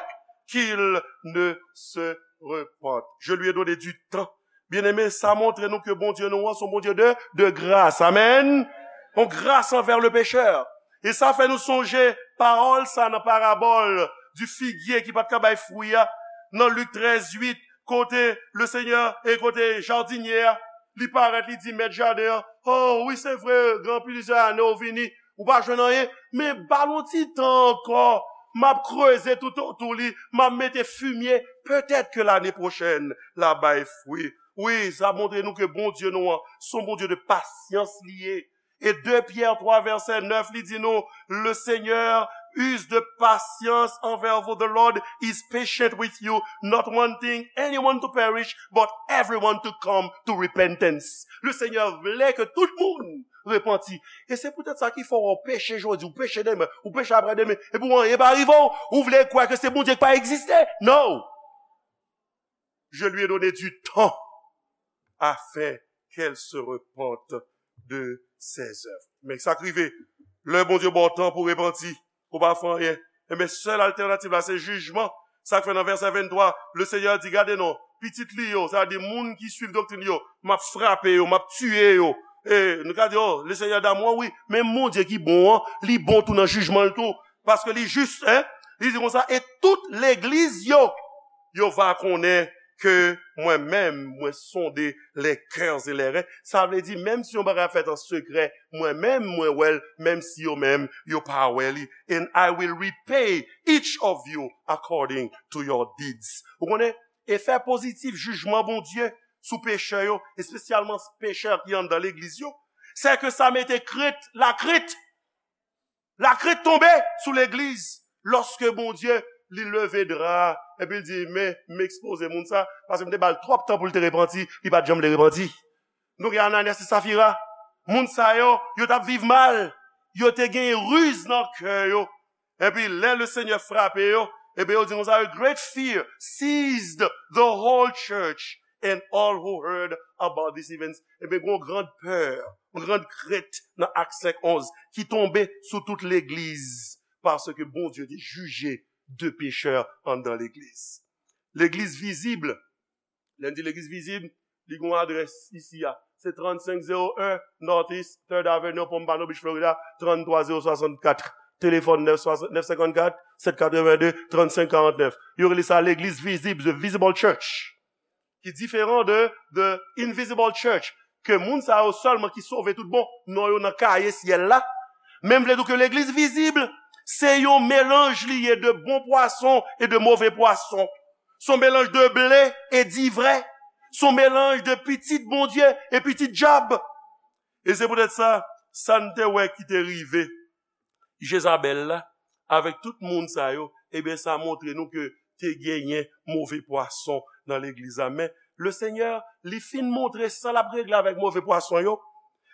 qu'ils ne se repentent. Je lui ai donné du temps. Byeneme, sa montre nou ke Bondye nou an se yon Bondye de, de gras. Amèn. Yon gras anvè le pechè. E sa fè nou sonje pawòl sa nan parabòl di figye ki pa t ka bay fwi a, nan Lik trèz uit, kote Lesenyè e kote jadinye a, li parèt, li di mèt jaden an, oh, wi, se vre, gen plizyè ane w vini, ou pa jwenn anyen, men ba l yon ti tan ankò, m ap kreze toutotou li, m ap mete fimye, petèt ke lane pwochèn, l ap bay fwi. Wi, sa montre nou ke Bondye nou an, se yon Bondye de pasyans li ye. E de Pyè twa vèsè nèf, li di nou, le Seigneur use de patience envers vous. The Lord is patient with you, not wanting anyone to perish, but everyone to come to repentance. Le Seigneur vle ke tout moun repanti. E se poutèt sa ki fè w peche jodi, ou peche demen, ou peche aprè demen, epi w anyen pa rive w, ou vle kwè ke se Bondye ki pa egziste. No! Je lui ai donné du temps afin qu'elle se repente de ses œuvres. Men sa k rive, lè Bondye ba w tan pou repanti, ou pa fè anyen. Enben, sèl altènativ la, se jijman. Sa k fè nan vèsè venntwa, Lesenyè di, gade non, pitit li yo, sa vle di moun ki swiv doktrin li yo, m ap frape yo, m ap tiye yo. E nou ka di, oh, Lesenyè damou, wi, men Bondye ki bon an, li bon tou nan jijman l tou. Paske li jis, en, li di konsa, e tout legliz yo, yo va konnen ke mwen menm, mwen sonde les cœurs et les reins. Sa vle di, menm si yon bagay ap fèt an sekrè, mwen menm, mwen wè l, menm si yo menm, yo pa wè li. And I will repay each of you according to your deeds. Ou konnen, efè pozitif jijman Bondye sou pechè yo, espesyalman pechè ki anndan legliz yo, se ke sa mete krent, lakrent. Lakrent tonbe sou legliz lòske Bondye, li leve dra a, epi l di, men, m ekspoze moun sa, paske m te ba l twòp tan pou l te repanti, li pa t janm vle repanti. Nou gen Ananyas e Safira. Moun sa yo, yo t ap viv mal. Yo te gen riz nan kè yo. Epi lè Lesenyè frape yo, epi yo di konsa, a great fear seized the whole church and all who heard about these events. Epi gen yon gran pè, yon gran krent nan Ak senk onz ki tonbe sou tout legliz, paske Bondye te jije de pechè anndan legliz. Legliz vizib, lè n di legliz vizib, li gen yon adrès isi a. Se trannsenk zewo en Northeast Third Avenue, Pompano Beach, Florida, tranntrwa zewo swasannkat. Telefòn nèf senkannkat, sèt katrevenndez, trannsenk karannèf. Yo rele sa legliz vizib, the visible church. Ki diferan de, de invisible church, ke moun sa yo sèlman ki sove tout bon, non yo nan kaye syèl la. Men m vle di w ke legliz vizib, se yon melanj li ye de bon pwason e de move pwason. Se yon melanj de ble e divrè. Se yon melanj de pitit Bondye e pitit dyab. E se poutèt sa, sa n te wè ki te rive Jezabèl la, avèk tout moun sa yo, ebyen, sa montre nou ke te genyen move pwason nan legliz la. Men, Lesenyè, li fin montre sa l ap regle avèk move pwason yo.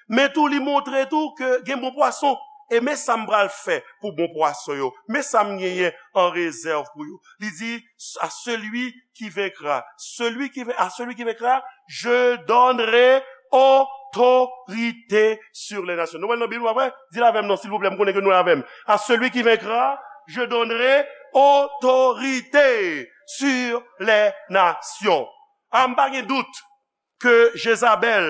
Men tou, li montre tou ke gen bon pwason. E men sa m pral fè pou bon pwason yo. Men sa m genyen an rezèv pou yo. Li di, à celui qui vaincra, celui qui vain- à celui qui vaincra, je donnerai autorité sur les nations. Nou wè l nan Bib, pa vre? Di l avè m non, silvouplè, m konnen ke nou la avè m. À celui qui vaincra, je donnerai autorité sur les nations. A, m pa gen dout ke Jezabèl,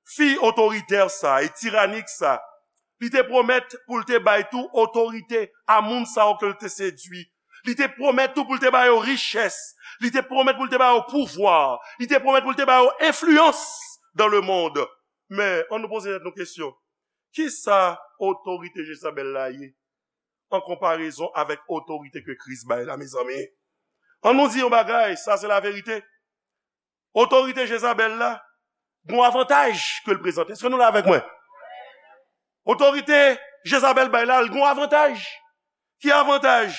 fi otoritè sa e tiranik sa, li te pwomèt pou l te bay tou otorite a moun sa yo ke l te sedui. Li te pwomèt tou pou l te ba yo richès. Li te pwomèt pou l te ba yo pouvwa. Li te pwomèt pou l te ba yo enfliyans dans le monde. Men, ann nou poze tèt nou kesyon. Kisa otorite Jezabèl la ye an konparezon avèk otorite ke Kris bay la, mezanmi? Ann nou di yon bagay, sa se laverite. Otorite Jezabèl la, gon avantaj ke l prezante. Èske nou la avèk mwen? Otorite Jezabèl bay la, l gon avantaj. Ki avantaj?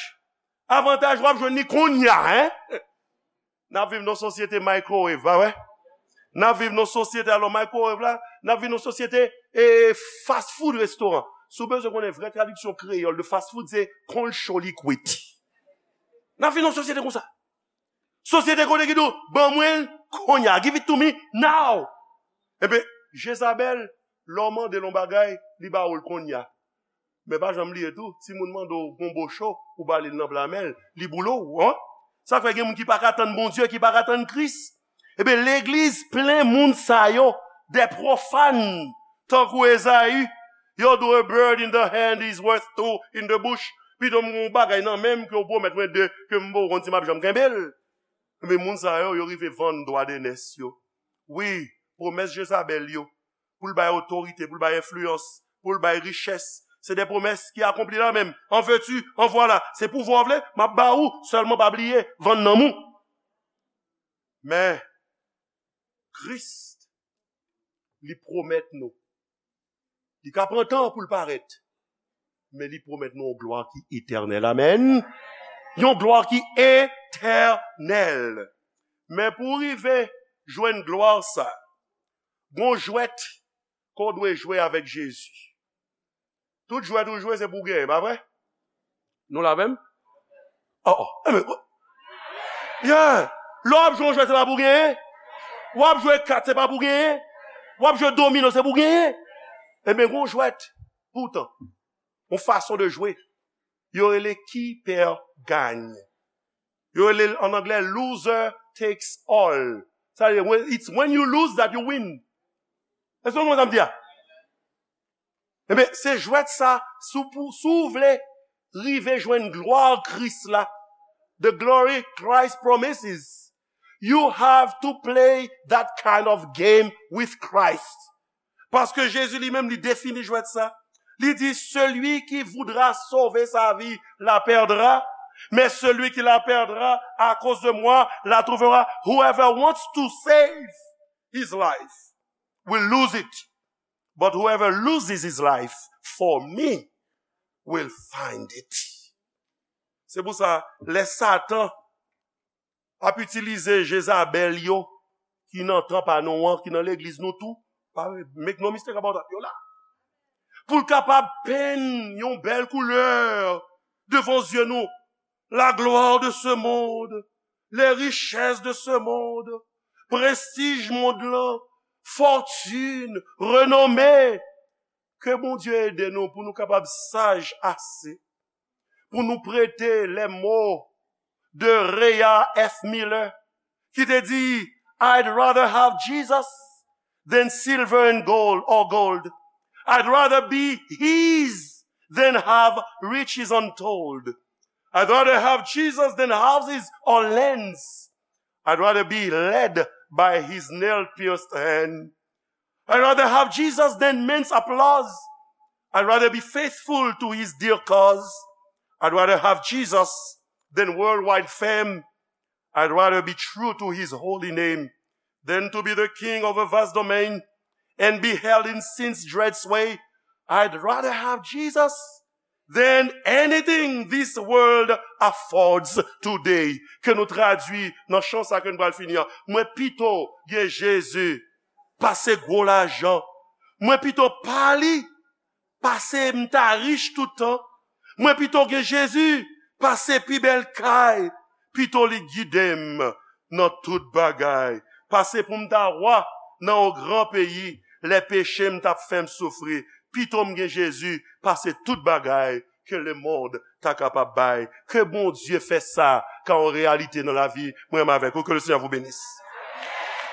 Avantaj w ap jwenn li kounye a, en? N ap viv nan sosyete microwave, pa vre? N ap viv nan sosyete, alò, microwave la, n ap viv nan sosyete, e, fast food restoran. Si w bezwen konnen vrè tradiksyon kreyòl de fast food, se konn cho li kwit. N ap viv nan sosyete konsa. Sosyete kote ki di w, "Ban mwen l kounye a, give it to me now." Ebyen, Jezabèl, lè w mande l yon bagay, li ba ou l kounye a. Men pa janm bliye tou, timoun mande w gonbo cho, ou ba li l nan pla men l, li boule w, en? Sa fè gen moun ki pa ka tann Bondye, ki pa ka tann Kris. Ebyen, legliz plen moun sa yo, des profanes, tankou Ezayi. "Yo, do a bird in the hand is worth two in the bush." Pito m gon bagay nan men m ke w pwomèt mwen de, ke m poko konn si m ap janm kenbe l. Men moun sa yo, yo rive vann dwa de nès yo. Wi, pwomès Jezabèl yo, pou l bay otorite, pou l bay enfliyans, pou l bay richès, se de pwomès ki akonpli la menm. An vèti, an vwala, se pouvwa w vle, m ap ba ou, sèlman pa bliye, vann nanm ou. Men, Kris, li pwomèt nou. Li ka pran tan pou l parèt, men li pwomèt nou yon glwa ki etènèl. Amèn. Yon glwa ki etènèl. Men pou w rive jwenn glwa sa, gon jwèt ke w dwe jwe avèk Jezi. Tout jwèt ou jwe, se pou w genyen, pa vre? Nou la menm? Oh, oh. Enben, yeah. Lè w ap jwe yon jwèt, se pa pou w genyen. W ap jwe kat, se pa pou w genyen. W ap jwe domino, se pou w genyen. Enben, gon jwèt. Poutan, yon fason de jwe. Yo rele qui perd gagne. Yo rele l an anglè loser takes all. Sa vle di, when- it's when you lose that you win. Èske w konprann sa m di a? Enben, se jwèt sa, si w pou- si w vle rive jwenn glwa Kris la, the glory Christ promises, you have to play that kind of game with Christ. Paske Jezi li menm, li defini jwèt sa. Li di, "Celui qui voudra sauver sa vie la perdra, mais celui qui la perdra à cause de moi la trouvera." Whoever wants to save his life will lose it, but whoever loses his life for me will find it. Se pou sa, lè Satan ap itilize Jezabèl yo, ki nan tan pa nou an, ki nan legliz nou tou, pa, make no mistake about that, yo la. Pou l kapab penn yon bèl koulè devan zye nou. La gloire de ce monde, les richesses de ce monde, prestij mond lan, fòtin, renome. Ke Bondye ede nou pou nou kapab saj ase pou nou prete les mots de Rhea F. Miller, ki te di, "I'd rather have Jesus than silver and gold or gold. I'd rather be his than have riches untold. I'd rather have Jesus than houses or lands. I'd rather be led by his nail pierced hand. I'd rather have Jesus than men's applause. I'd rather be faithful to his dear cause. I'd rather have Jesus than worldwide fame. I'd rather be true to his holy name than to be the king of a vast domain and be held in sin's dread sway. I'd rather have Jesus than anything this world affords today. Ke nou tradui nan chan sa ke nou pral fini an. Mwen pito gen Jezi pase gwo lajan. Mwen pito pa li pase m ta rich tout tan. Mwen pito gen Jezi pase pi bèl kay. Pito li gide m nan tout bagay. Pase pou m ta wa nan yon gran peyi, lè peche m t ap fè m soufri. Pito m gen Jezi pase tout bagay ke lemonn ta kapab bay. Ke Bondye fè sa ka yon reyalite nan lavi mwen menm avèk ou. Ke le Seigneur vous bénisse.